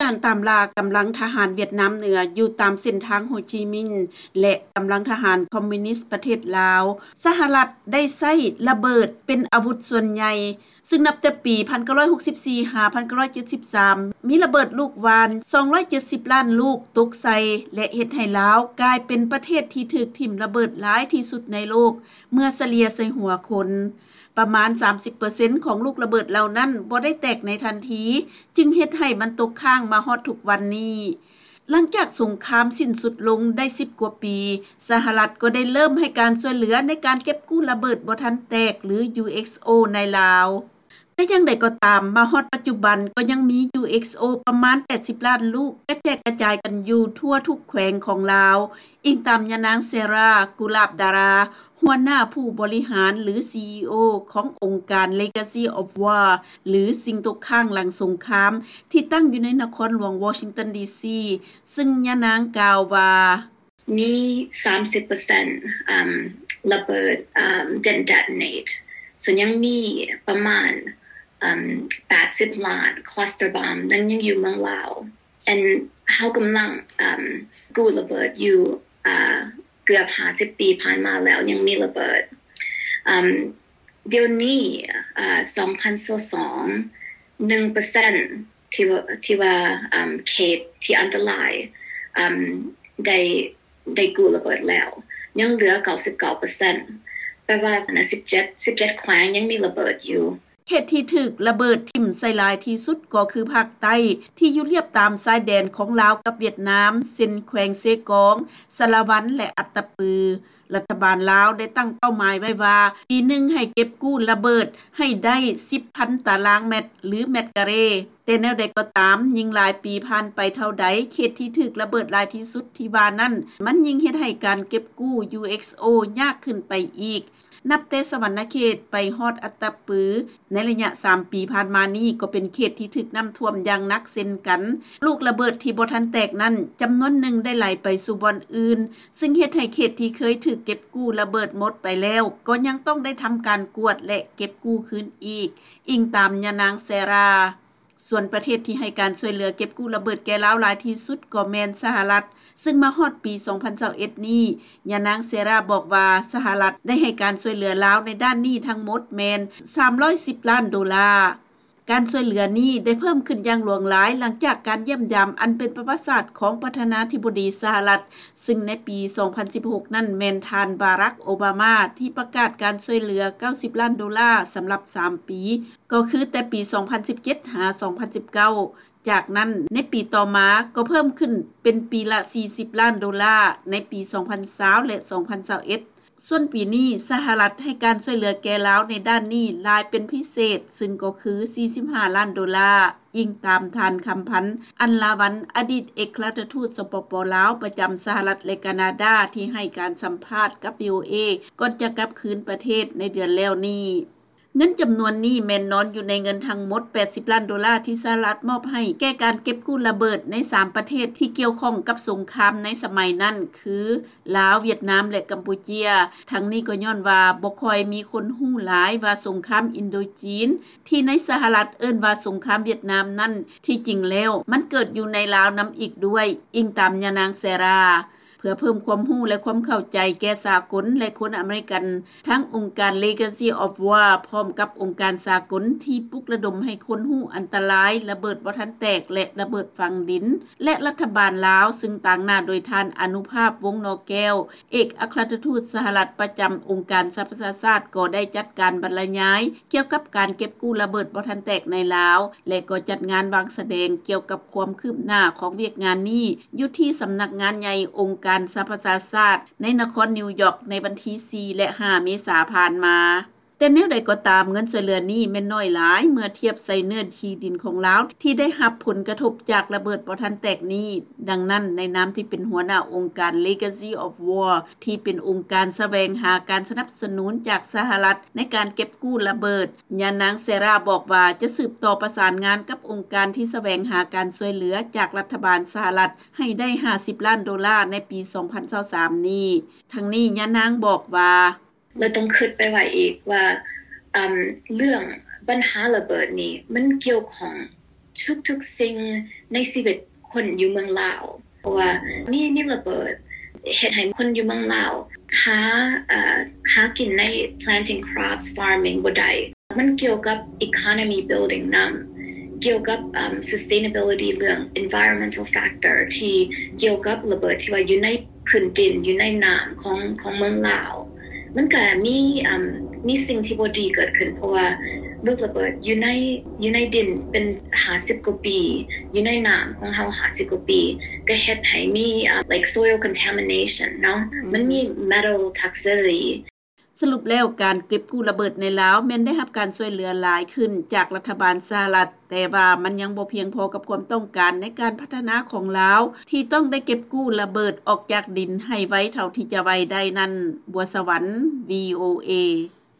ການຕາມລ່າກຳລັງທະຫານຫວຽດນາມເໜືອ ຢູ່ຕາມເສັ້ນທາງໂຮຈິມິນ ແລະ ກຳລັງທະຫານຄອມມິວນິສປະເທດລາວ, ສະຫະລັດໄດ້ໃຊ້ລະເບີດເປັນອາວຸດສ່ວນໃຫຍ່, ຊຶ່ງນັບແຕ່ປີ 1964-1973 ມີລະເບີດລູກຫວ່ານ 270 ລ້ານລູກຕົກໃສ່ ແລະ ເຮັດໃຫ້ລາວກາຍເປັນປະເທດທີ່ຖືກຖິ້ມລະເບີດຫຼາຍທີ່ສຸດໃນໂລກ ເມື່ອສະເລ່ຍໃສ່ຫົວຄົນ. ປະມານ 30% ຂອງລູກລະເບີດເຫຼົ່ານັ້ນບໍ່ໄດ້ແຕກໃນທັນທີ, ຈຶ່ງເຮັດໃຫ້ມັນຕົກຄ້າງມາຮອດທຸກວັນນີ້. ຫຼັງຈາກສົງຄາມສິ້ນສຸດລົງໄດ້ 10 ກວ່າປີ, ສະຫະລັດກໍໄດ້ເລີ່ມໃຫ້ການຊ່ວຍເຫຼືອໃນການເກັບກູ້ລະເບີດບໍ່ທັນແຕກ ຫຼື UXO ໃນລາວ. ແຕ່ຢ່າງໃດກໍຕາມ, ມາຮອດປັດຈຸບັນກໍຍັງມີ UXO ປະມານ 80 ລ້ານລູກ ກະແຈກກະຈາຍກັນຢູ່ທົ່ວທຸກແຂວງຂອງລາວ, ອີງຕາມຍານາງ ເຊຣາ ກຸລາບດາຣາ ຫົວໜ້າຜູ້ບໍລິຫານ ຫຼື CEO ຂອງອົງການ Legacy of War ຫຼື ສິ່ງຕົກຄ້າງຫຼັງສົງຄາມ ທີ່ຕັ້ງຢູ່ໃນນະຄອນຫຼວງວໍຊິງຕັນ ດີຊີ ຊຶ່ງຍານາງກ່າວວ່າ: ມີ 30% ລະເບີດ ເປັນ detonate ສ່ວນຍັງມີປະມານ 80 ລ້ານ cluster bomb ນັ້ນຍັງຢູ່ເມືອງລາວ. ເຮົາກຳລັງກູ້ລະເບີດຢູ່ເກືອບ 50 ປີຜ່ານມາແລ້ວ ຍັງມີລະເບີດ. ດຽວນີ້ 2022 ໜຶ່ງເປີເຊັນ ທີ່ວ່າ ທີ່ວ່າເຂດທີ່ອັນຕະລາຍ ໄດ້ ໄດ້ກູ້ລະເບີດແລ້ວ ຍັງເຫຼືອ 99 ເປີເຊັນ ແປວ່າ 17 17 ແຂວງຍັງມີລະເບີດຢູ່. ເຂດທີ່ຖືກລະເບີດຖິ້ມໃສ່ຫຼາຍທີ່ສຸດກໍຄືພາກໃຕ້ ທີ່ຢູ່ລຽບຕາມຊາຍແດນຂອງລາວກັບຫວຽດນາມ ເຊັ່ນ ແຂວງເຊກອງ, ສາລະວັນ ແລະ ອັດຕະປື. ລັດຖະບານລາວໄດ້ຕັ້ງເປົ້າໝາຍໄວ້ວ່າ ປີໜຶ່ງໃຫ້ເກັບກູ້ລະເບີດໃຫ້ໄດ້ 10 ພັນຕາລາງແມັດ ຫຼື ແມັດກາເຣ. ແຕ່ແນວໃດກໍຕາມ, ຍິ່ງຫຼາຍປີຜ່ານໄປເທົ່າໃດ, ເຂດທີ່ຖືກລະເບີດຫຼາຍທີ່ສຸດທີ່ວ່ານັ້ນ ມັນຍິ່ງເຮັດໃຫ້ການເກັບກູ້ UXO ຍາກຂຶ້ນໄປອີກ. ນັບແຕ່ສະຫວັນນະເຂດໄປຮອດອັດຕະປື ໃນໄລຍະ 3 ປີຜ່ານມານີ້ ກໍເປັນເຂດທີ່ຖືກນ້ຳຖ້ວມຢ່າງໜັກເຊັ່ນກັນ. ລູກລະເບີດທີ່ບໍ່ທັນແຕກນັ້ນ ຈຳນວນໜຶ່ງໄດ້ໄຫຼໄປສູ່ບ່ອນອື່ນ, ຊຶ່ງເຮັດໃຫ້ເຂດທີ່ເຄີຍຖືກເກັບກູ້ລະເບີດໝົດໄປແລ້ວ ກໍຍັງຕ້ອງໄດ້ທຳການກວດ ແລະ ເກັບກູ້ຄືນອີກ, ອີງຕາມຍານາງ ເຊຣາ. ສ່ວນປະເທດທີ່ໃຫ້ການຊ່ວຍເຫຼືອເກັບກູ້ລະເບີດແກ່ລາວຫຼາຍທີ່ສຸດກໍແມ່ນສະຫະລັດ, ຊຶ່ງມາຮອດປີ 2021 ນີ້, ຍານາງ ເຊຣາ ບອກວ່າ ສະຫະລັດໄດ້ໃຫ້ການຊ່ວຍເຫຼືອລາວໃນດ້ານນີ້ທັງໝົດແມ່ນ 310 ລ້ານໂດລາ. ການຊ່ວຍເຫຼືອນີ້ໄດ້ເພີ່ມຂຶ້ນຢ່າງຫຼວງຫຼາຍ ຫຼັງຈາກການຢ້ຽມຢາມອັນເປັນປະຫວັດສາດຂອງປະທານາທິບໍດີສະຫະລັດ, ຊຶ່ງໃນປີ 2016 ນັ້ນແມ່ນທ່ານ ບາຣັກ ໂອບາມາ ທີ່ປະກາດການຊ່ວຍເຫຼືອ 90 ລ້ານໂດລາສຳລັບ 3 ປີ, ກໍຄືແຕ່ປີ 2017 ຫາ 2019. ຈາກນັ້ນ, ໃນປີຕໍ່ມາກໍເພີ່ມຂຶ້ນເປັນປີລະ 40 ລ້ານໂດລາ ໃນປີ 2020 ແລະ 2021. ສ່ວນປີນີ້, ສະຫະລັດໃຫ້ການຊ່ວຍເຫຼືອແກ່ລາວໃນດ້ານນີ້ຫຼາຍເປັນພິເສດ, ຊຶ່ງກໍຄື 45 ລ້ານໂດລາ, ອີງຕາມທ່ານ ຄຳພັນ ອັນລາວັນ ອະດີດເອກອັຄລັດທູດ ສປປ ລາວ ປະຈຳສະຫະລັດ ແລະ ການາດາ ທີ່ໃຫ້ການສຳພາດກັບ VOA ກ່ອນຈະກັບຄືນປະເທດໃນເດືອນແລ້ວນີ້. ເງິນຈຳນວນນີ້ແມ່ນນອນຢູ່ໃນເງິນທັງໝົດ 80 ລ້ານໂດລາ ທີ່ສະຫະລັດມອບໃຫ້ແກ່ການເກັບກູ້ລະເບີດໃນ ສາມ ປະເທດທີ່ກ່ຽວຂ້ອງກັບສົງຄາມໃນສະໄໝນັ້ນ ຄື ລາວ, ຫວຽດນາມ ແລະ ກຳປູເຈຍ. ທັງນີ້ກໍຍ້ອນວ່າບໍ່ຄ່ອຍມີຄົນຮູ້ຫຼາຍວ່າສົງຄາມອິນໂດຈີນ ທີ່ໃນສະຫະລັດເອີ້ນວ່າສົງຄາມຫວຽດນາມນັ້ນ ທີ່ຈິງແລ້ວມັນເກີດຢູ່ໃນລາວນຳອີກດ້ວຍ, ອີງຕາມຍານາງ ເຊຣາ. ເພື່ອເພີ່ມຄວາມຮູ້ ແລະ ຄວາມເຂົ້າໃຈແກ່ສາກົນ ແລະ ຄົນອາເມລິກັນ, ທັງອົງການ Legacy of War ພ້ອມກັບອົງການສາກົນທີ່ປຸກລະດົມໃຫ້ຄົນຮູ້ອັນຕະລາຍລະເບີດບໍ່ທັນແຕກ ແລະ ລະເບີດຝັງດິນ ແລະ ລັດຖະບານລາວ, ຊຶ່ງຕາງໜ້າໂດຍທ່ານ ອະນຸພາບ ວົງໜໍແກ້ວ, ເອກອັກຄະລັດທູດສະຫະລັດປະຈຳອົງການສະຫະປະຊາຊາດ ກໍໄດ້ຈັດການບັນລະຍາຍກ່ຽວກັບການເກັບກູ້ລະເບີດບໍ່ທັນແຕກໃນລາວ ແລະ ກໍຈັດງານວາງສະແດງກ່ຽວກັບຄວາມຄືບໜ້າຂອງວຽກງານນີ້ ຢູ່ທີ່ສຳນັກງານໃຫຍ່ອົງການສະຫະປະຊາຊາດ ໃນນະຄອນນິວຢອກ ໃນວັນທີ ສີ່ ແລະ ຫ້າ ເມສາຜ່ານມາ. ແຕ່ແນວໃດກໍຕາມ, ເງິນຊ່ວຍເຫຼືອນີ້ແມ່ນໜ້ອຍຫຼາຍເມື່ອທຽບໃສ່ເນື້ອທີ່ດິນຂອງລາວ ທີ່ໄດ້ຮັບຜົນກະທົບຈາກລະເບີດບໍ່ທັນແຕກນີ້. ດັ່ງນັ້ນ, ໃນນາມທີ່ເປັນຫົວໜ້າອົງການ Legacy of War ທີ່ເປັນອົງການສະແຫວງຫາການສະໜັບສະໜູນຈາກສະຫະລັດໃນການເກັບກູ້ລະເບີດ, ຍານາງ ເຊຣາ ບອກວ່າຈະສືບຕໍ່ປະສານງານກັບອົງການທີ່ສະແຫວງຫາການຊ່ວຍເຫຼືອຈາກລັດຖະບານສະຫະລັດ ໃຫ້ໄດ້ ຫ້າສິບລ້ານໂດລາ ໃນປີ ສອງພັນຊາວສາມນີ້. ທັງນີ້, ຍານາງບອກວ່າ: ແລະ ຕ້ອງຄິດໄປໄວ້ອີກວ່າ ເລື່ອງບັນຫາລະເບີດນີ້ ມັນກ່ຽວຂ້ອງ ທຸກໆສິ່ງໃນຊີວິດຄົນຢູ່ເມືອງລາວ ເພາະວ່າມີມີລະເບີດເຮັດໃຫ້ຄົນຢູ່ເມືອງລາວຫາເອີ່ຫາກິນໃນ planting crops farming ບໍ່ໄດ້. ມັນກ່ຽວກັບ economy building ນຳ ກ່ຽວກັບເອີ່ມ sustainability ເລື່ອງ environmental factor ທີ່ກ່ຽວກັບລະເບີດທີ່ວ່າຢູ່ໃນພື້ນດິນ ຢູ່ໃນນ້ຳຂອງຂອງເມືອງລາວ. ມັນກະມີເອີ່ມມີສິ່ງທີ່ບໍ່ດີເກີດຂຶ້ນ ເພາະວ່າລູກລະເບີດຢູ່ໃນຢູ່ໃນດິນເປັນຫ້າສິບກວ່າປີ ຢູ່ໃນນ້ຳຂອງເຮົາຫ້າສິບກວ່າປີ ກະເຮັດໃຫ້ມີເອີ່ມ like soil contamination ເນາະ ມັນມີ metal toxicity. ສະຫຼຸບແລ້ວ ການເກັບກູ້ລະເບີດໃນລາວແມ່ນໄດ້ຮັບການຊ່ວຍເຫຼືອຫຼາຍຂຶ້ນຈາກລັດຖະບານສະຫະລັດ, ແຕ່ວ່າມັນຍັງບໍ່ພຽງພໍກັບຄວາມຕ້ອງການໃນການພັດທະນາຂອງລາວ ທີ່ຕ້ອງໄດ້ເກັບກູ້ລະເບີດອອກຈາກດິນໃຫ້ໄວເທົ່າທີ່ຈະໄວໄດ້ນັ້ນ. ບົວສະຫວັນ ວີໂອເອ.